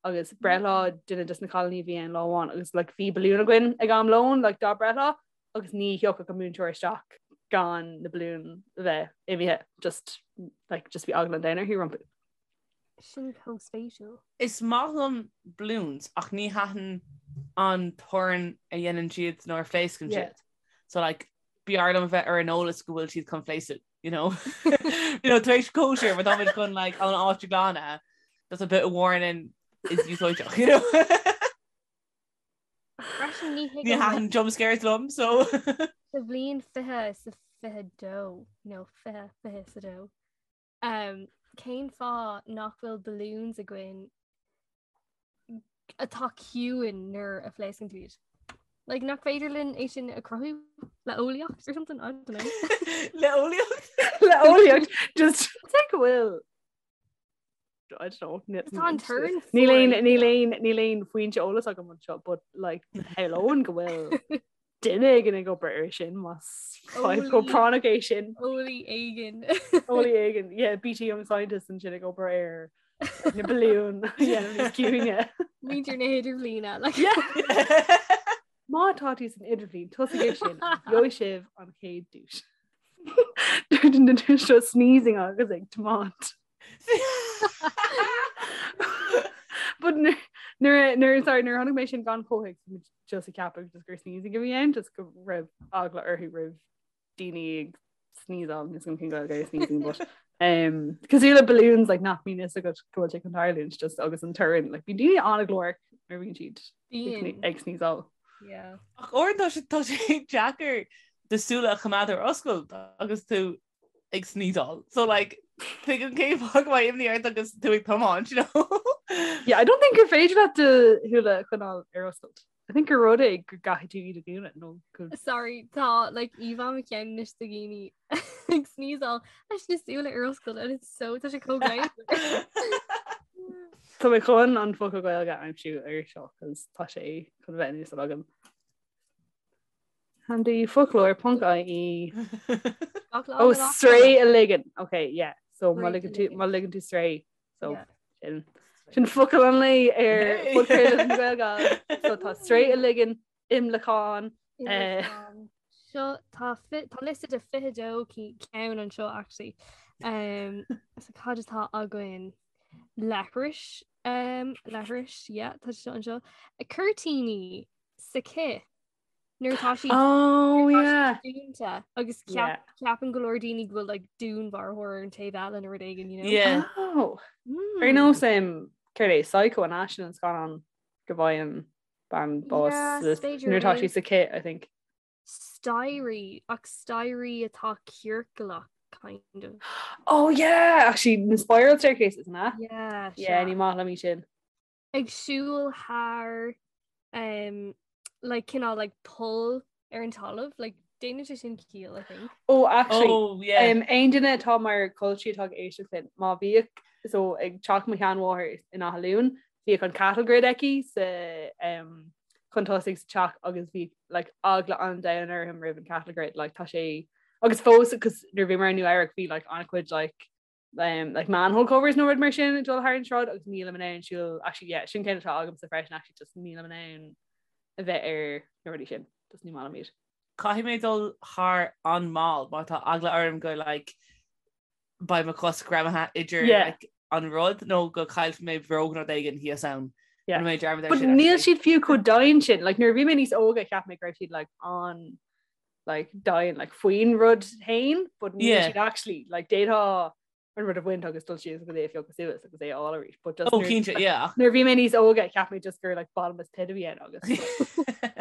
agus breithlá duine des na cailíní a bhí ann lá amháin agus like, bhí balún againn ag am lóin like, dá breithlá agus ní thiocfadh an múinteoir isteach gan na balúin a bheith imithe just like, just bhí eagla an domhain uirthi rompu. Sin chomh spéisiúil. Is maith liom balloons ach ní thaitin an torann a dhéanann siad nuair a phléascann siad. So like b'fhearr liom a bheith ar an eolas go bhfuil siad chun pléascadh, you know? You know, tar éis cóisir, má táimid chun like an áit a ghlanadh, that's a bit of warning is úsáideach, you know? Freisin ní Ní thaitin jump scares liom, so. Sa bhliain 20 is a 22, nó 20, 22. Um, cén fáth nach bhfuil balloons againn atá ciúin nuair a phléascann tú iad? Like, nach féidir linn é sin a chruthú le eolaíocht or something? I don't know. Le eolaíocht? Le eolaíocht just take go bhfuil I don't know. Tá an torann Níl aon níl aon níl aon foinse eolas agam anseo, but like shamhlóinn go bhfuil duine éigin ag obair ar sin más fadhb chomh práinneach é sin. Eolaí éigin. Eolaí éigin, yeah, BT Young Scientist ansin ag obair ar na balúin a dhéanamh níos ciúine. Muintir na hidirbhliana. Like. Má tá tú san idirbhliain, tosaigh ar sin, gheobhaidh sibh an chéad duais. Dúirt an duine seo sneezing agus ag tiomáint. But nuair nuair sorry nuair a chonaic mé sin gan chomhthéacs bhí mé just ag ceapadh just gur sneezing a bhí ann just go raibh eagla orthu roimh daoine ag sneezeáil níl a fhios agam cén Ghaeilge ar sneezing but um, cosúil le balloons like nach mbíonn fhios agat go bhfuil sé chun tarlúint just agus an torann like bíonn daoine an-ghlórach nuair a bhíonn siad Bíonn. ag sneezeáil. Yeah. Ach uaireanta tá sé tá sé deacair do súile a choimeád ar oscailt agus tú ag sneezeáil. So like tuigim cén fáth go mbeidh imní ort agus tú ag tiomáint, you know? Yeah, I don't think gur féidir leat do shúile a choinneáil ar oscailt. I think gur rud é go gcaithfidh tú iad a dhúnadh nó go Sorry, tá like íomhá i mo cheann anois de dhaoine ag sneezeáil leis na súile ar oscailt and it's so tá sé chomh greannmhar. Tá mé chun an focal Gaeilge a aimsiú ar seo cos tá sé chun bheith in úsáid agam. Handy foclóir ponc IE. Ó sraoth a ligean. Ok, yeah. So má ligeann tú má ligeann tú sraoth. So sin sin focal an lae ar podchraoladh na Gaeilge. So tá sraoth a ligean, imleacán. Eh. Seo tá tá liosta de 22 ceann anseo actually. Um, so cad atá againn leithris um, leithris yeah, tá seo anseo. Cuirtíní sa chith nuair atá siad Oh yeah. dúnta agus Yeah. ceapann go leor daoine go bhfuil like dúnmharfóir ar an taobh eile nó rud éigin you know? Yeah. Oh. Mm. Ar nós um, céard é Psycho an ea sin an scannán go bhfaigheann bean bás Yeah, sa- is féidir nuair atá é. sí sa chith I think. Staighrí ach staighrí atá ciorclach kind of. Oh yeah, actually na spiral staircases an ea? Yeah, Yeah, sea. ní maith liom í sin. Ag siúl thar um, like cineál like poll ar an talamh like déanann sé sin ciall I think. Oh actually Oh yeah. um, aon duine atá mar culchie atá ag éisteacht linn má bhíodh so ag teach mo sheanmháthar in Áth Luain bhíodh an cattle grid aici sa um, chun tosaigh sa teach agus bhí like eagla an domhain orm roimh an cattle grid like tá sé agus fós cos nuair bhíomar i Nua Eabhrac bhí like an-chuid like um, like manhole covers nó rud mar sin ag dul thar an sráid agus nílim in ann siúl actually yeah sin ceann atá agamsa freisin actually just nílim in ann a bheith ar na rudaí sin just ní maith liom iad. Caithfidh mé dul thar an mall mar tá eagla orm go like beidh mo chos greamaithe idir yeah. like, an rud nó go caillfidh mé bróg nó rud éigin thíos ann. Yeah. Mé dearmad But níl siad fiú chomh domhain sin like nuair a bhí mé níos óga cheap mé go raibh siad like an like domhain like faoin rud féin but níl yeah. siad actually like d'fhéadfá an rud a bhaint agus dul síos agus é a phiocadh suas agus é a fháil arís but just oh, cinnte, yeah. nuair bhí mé níos óga cheap mé just gur like bottomless pit a bhí ann agus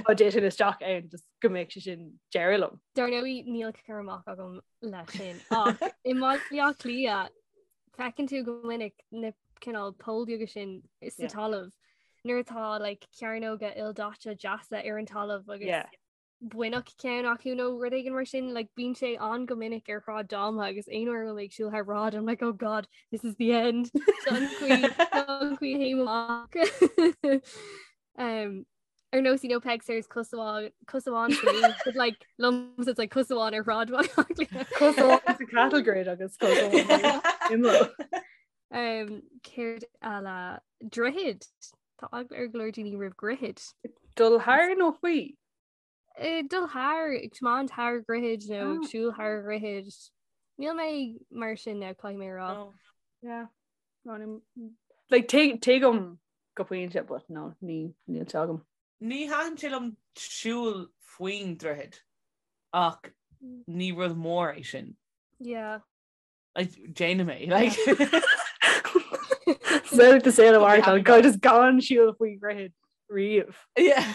dá dtitfinn isteach ann just go mbeadh sé sin deireadh liom. Dar ndóigh níl cur amach agam leis sin ach i mBaile Átha Cliath feiceann tú go minic na cineál poill beaga sin sa talamh nuair atá like cearnóga ildaite deasa ar an talamh agus yeah. buinneach ceann acu nó rud éigin mar sin like bíonn sé an go minic ar Shráid Dáma agus aon uair a bhím ag siúl thar bráid I'm like oh god this is the end an chaoi a amach um ar nós you know Peig Sayers cos amháin cos amháin sa lúb, but like liomsa it's like cos amháin ar shráid Bhaile Átha Cliath. Cos amháin sa cattle grid agus cos amháin imeall. Um, céard eile droichid Tá eagla ar go leor daoine roimh dhroichid. Dul thar nó faoi? Eh, dul thar ag tiomáint thar dhroichid nó ag ah. siúl thar dhroichid. Níl mé mar sin now caithfidh mé rá. Oh. Yeah. No, like tuigim go pointe but no ní níl sé agam. Ní thaitin sé liom siúl faoin droichead ach ní rud mór é sin. Yeah. Like, déanaim é like. So to say the word go just gan siúl faoi dhroichead riamh. Yeah.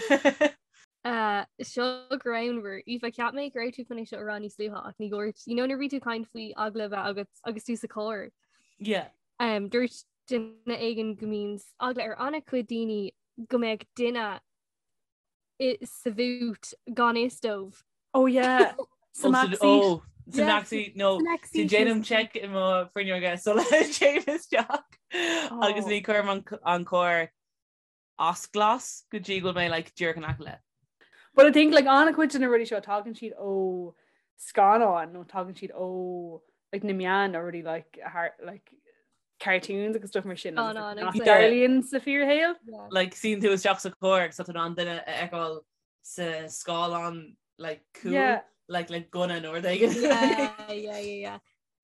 Uh, seo greannmhar Aoife cheap mé go raibh tú chun é seo a rá níos luaithe ach ní dúirt you know nuair a bhí tú ag caint faoi eagla a bheith agat agus tú sa charr. Yeah. Um, dúirt duine éigin go mbíonn eagla ar an-chuid daoine go mbeadh duine sa bhút gan fhios dóibh. Oh yeah. Sa backseat. Oh, sa backseat no déanaim check i mo fuinneoga sula dtéim isteach agus ní chuirim an carr as glas go dtí go bhfuil mé like díreach in aice leis. But I think like an-chuid de na rudaí seo tagann siad ó scannáin nó tagann siad ó like na meáin nó rudaí like har like cartoons agus stuff mar sin oh, no, nach dtarlaíonn sa fíorshaol. Like suíonn tú isteach sa charr agus tá tú in ann duine a fheiceáil sa scáileán like cúil Yeah. like le gunna nó rud éigin. Yeah, yeah, yeah, yeah.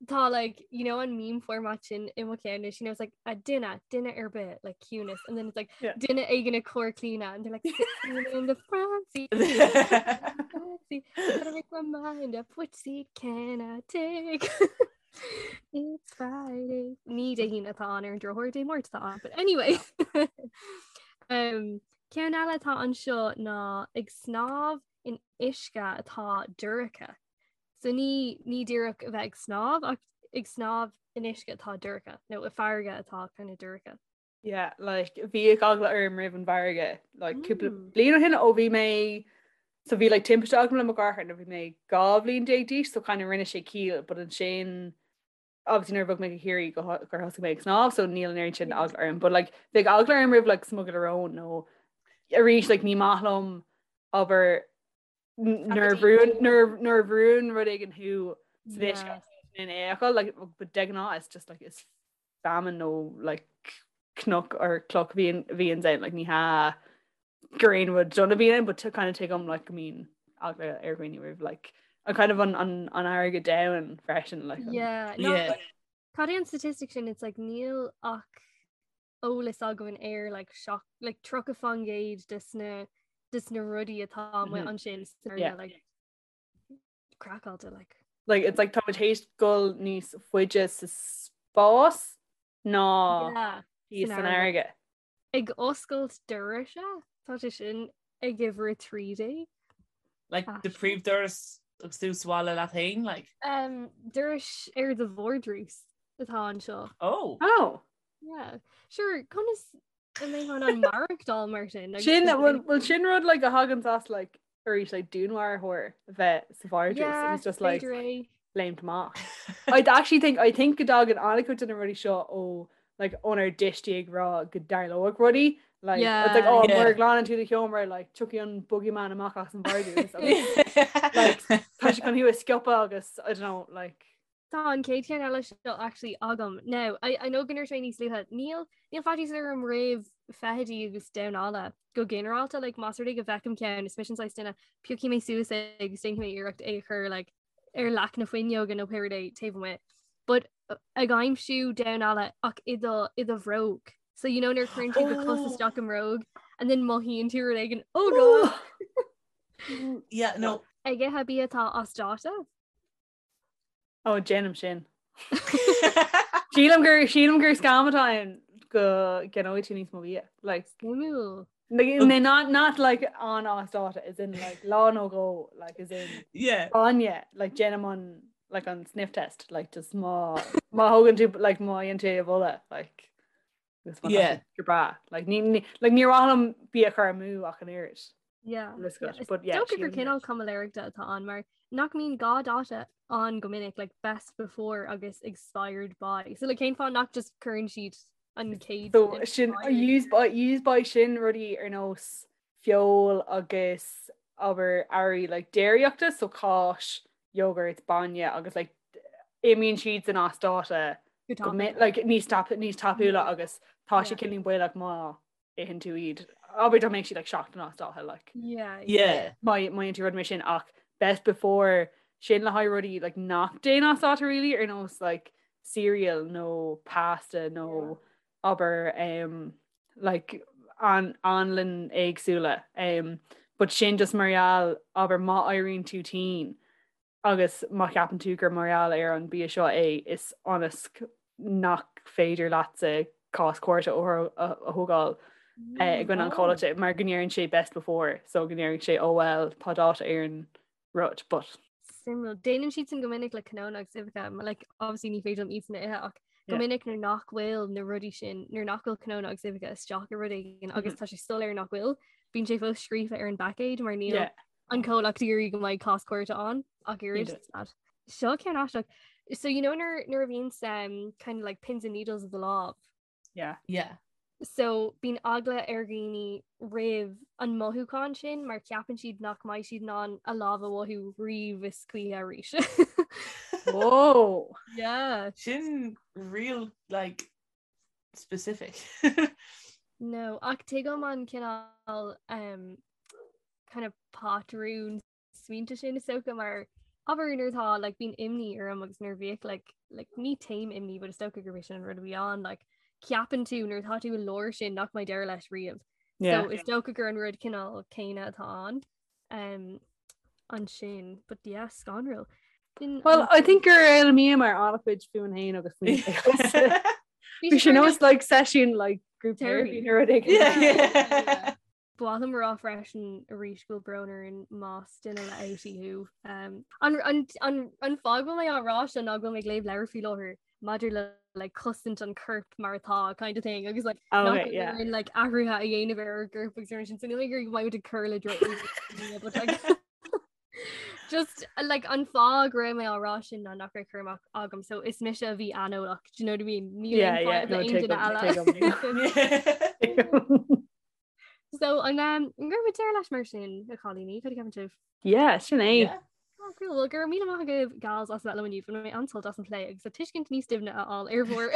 Tá like you know an meme format sin i mo cheann you know it's like a duine duine ar bith like ciúnas and then it's like Yeah. duine éigin ag cur claoine and they're like sitting in the front seat front seat, gotta make my mind up which seat can I take It's Friday Ní Dé hAoine atá ann ar an drochuair Dé Máirt atá ann but anyway um, Ceann eile atá anseo ná ag snámh in uisce atá dorcha So ní ní díreach a bheith ag snámh ach ag snámh in uisce atá dorcha nó i farraige atá kind of dorcha. Yeah, like bhíodh eagla orm roimh an bhfarraige like cúpla Mm. bliain ó shin ó bhí mé so bhí like timpiste agam le mo dheartháir nuair bhí mé 12 bhliain d'aois so kind of rinne sé ciall but ansin obviously nuair a bhog mé go Ciarraí go gur thosaigh mé ag snámh so níl an oiread sin Yeah. eagla orm but like bheadh eagla orm roimh like smugairle róin nó arís like ní maith liom abair nuair a bhrúnn rud éigin thú sa uisce in aon like but de ghnáth it's just like is feamainn nó like cnoc or cloch bhíonn bhíonn ann like ní hea gur aon rud dona bhíonn ann but to kind of tuigim like go mbíonn eagla ar dhaoine roimh like an kind of an an an fharraige domhain freisin like Yeah, no, Yeah. Cad é an statistic sin it's like níl ach eolas againn ar like seach like 30% des na des na rudaí atá amuigh Mhm. ansin san Yeah. fharraige, like craiceáilte like. Like it's like tá muid théis dul níos faide sa spás ná Yeah, thíos san san fharraige. fharraige. Ag oscailt dorais tá sé sin ag uimhir 13. Like the Aisling. príomhdoras agus tú sa bhaile leat féin like. Um, dorais ar do vardrús atá anseo. Oh. Oh. Yeah. Sure, conas a mbeifeá in ann maireachtáil mar sin? Sin bhfuil sin rud like a thagann as like arís like dúnmharfóir a bheith sa vardrús Yeah, and it's just like b'fhéidir é. léimt amach. I actually think I think go dtagann an-chuid de na rudaí seo ó like ónár dtuistí ag rá go dtarlódh rudaí. Like, yeah, it's like, oh, yeah. Mura nglanann tú do sheomra, like, tiocfaidh an boogeyman amach as an vardrús. Like, tá sé chun thú a sciobadh agus, I don't know, like... Tá an chéad cheann eile seo actually agam. Now, I, I know go ndúirt mé níos luaithe, níl, níl faitíos orm roimh feithidí agus damhán alla go ginearálta, like, más rud é go bhfeicim ceann, is mise an saghas duine, piocfaidh mé suas é agus déanfaidh mé iarracht é a chur, like, ar leac na fuinneoige nó pé rud é taobh amuigh. But ag aimsiú damhán alla ach i do i do bhróg. So you know nuair a chuireann tú do chos isteach i mbróg and then mothaíonn tú rud éigin oh god. Yeah, no. Ag ithe bia atá as dáta? Ó déanaim sin. Sílim gur sílim gur scam atá ann go gceannóidh tú níos mó bia. Like Suimiúil. Like, not not like an as dáta as in like lá nó dhó like as in yeah bainne like déanaim an like an sniff test like just má má thógann tú like má fhaigheann tú a bholadh like yeah go breá like ní ní like ní mhaith liom bia a chur amú ach an oiread Yeah. But yeah, Dócha gur cineál caimiléireachta atá ann mar nach mbíonn gá dáta ann go minic like best before agus expired by. So like cén fáth nach just cuireann siad an chéad So sin use by use by sin rudaí ar nós feoil agus abair earraí like déiríochta so cáis, yogurt, bainne agus like imíonn siad san as dáta Go like níos tap níos tapúla agus tá sé cineál baolach má itheann tú iad. Abair dá mbeadh siad like seachtain as dáta like. Yeah. Yeah. Má má itheann tú rud mar sin ach best before sin le haghaidh rudaí like nach dtéann as dáta really ar nós like cereal nó pasta nó abair um, like an anlann éagsúla um, but sin just mar gheall abair má éiríonn tú tinn agus má cheapann tú gur mar gheall ar an bia seo é is ionas nach féidir leatsa cás cúirte a thógáil eh, i gcoinne an chomhlachta mar go ndeireann sé best before so go ndeireann sé oh well tá dáta ar an rud but Suimiúil. Déanann siad sin go minic le cnónna agus uibheacha, mar like, obviously ní féidir liom iad sin a ithe ach go minic nuair nach bhfuil na rudaí sin, nuair nach bhfuil cnónna agus uibheacha isteach i rud éigin agus tá sé soiléir nach bhfuil, bíonn sé fós scríofa ar an bpaicéad mar níl Yeah. an comhlacht ag iarraidh go mbeidh cás cúirte ann ach oiread. Yeah. Seo ceann aisteach. So you know nuair nuair a bhíonn um, kind of like pins and needles of the lámh. Yeah. Yeah. So bíonn eagla ar dhaoine roimh an mothúchán sin mar ceapann siad nach mbeidh siad in ann a lámh a mhothú riamh is choíche arís. Whoa. Yeah. Sin real like specific. No, ach tuigim an cineál um, kind of patrún smaointe sin is dócha mar abair nuair atá like bíonn imní orm agus nuair bhíodh like like ní taom imní but is dócha gurb é sin an rud a bhí ann like ceapann tú nuair atá tú i lár sin nach mbeidh deireadh leis riamh. Yeah. So is dócha gur an rud cineál céanna atá ann um, ansin but yeah scanrúil. Sin Well, an- I think gur fhoghlaimíomar an-chuid fúinn féin agus faoin Bhí sé nós like session like group Therapy. therapy nó rud éigin. Yeah, yeah. Ba mhaith liom a rá freisin arís go bhfuil brón orainn más duine le outie thú. An fáth go bhfuil mé á rá seo ná go bhfuil mé ag léamh leabhar faoi láthair maidir le like cosaint an choirp mar atá kind of thing agus like Oh, nach okay, yeah. bhfuil like athruithe a dhéanamh ar ár gcorp agus ar sin so níl mé ag iarraidh go mbeidh muid ag cur le droch but like just like an fáth go raibh mé á rá sin ná nach raibh cur amach agam so is mise a bhí aineolach do you know what I mean? Níl Yeah, aon yeah, fadhb le no, aon duine tuigim, eile. tuigim. So an um, an gcuirfidh muid deireadh leis mar sin a chailíní, cad a cheapann sibh? Yeah, sin é. Yeah. Oh, cool. Well, go raibh míle maith agaibh gals as bheith liom inniu bhain mé an-sult as an plé agus an tuiscint níos doimhne a fháil ar bhur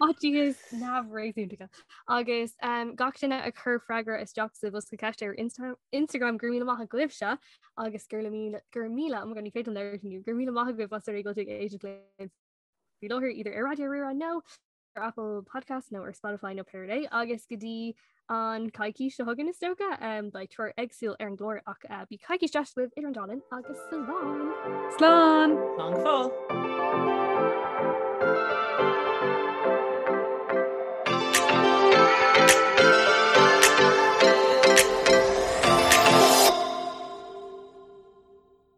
fhaitíos neamhréasúnta. Agus um, gach duine a chuir freagra isteach sa bhosca ceiste ar Insta Instagram go raibh míle maith agaibhse agus gur míle gur míle oh my God, ní féidir liom labhairt inniu, go raibh míle maith agaibh as a bheith ag éisteacht linn faoi láthair either ar Raidió Rí-Rá nó ar Apple Podcast nó ar Spotify nó pé rud é agus go dtí an coicís seo chugainn is dócha um, beidh triúr éagsúil ar an gclár ach uh, bíodh coicís deas agaibh idir an dá linn agus slán! Slán! Slán go fóill!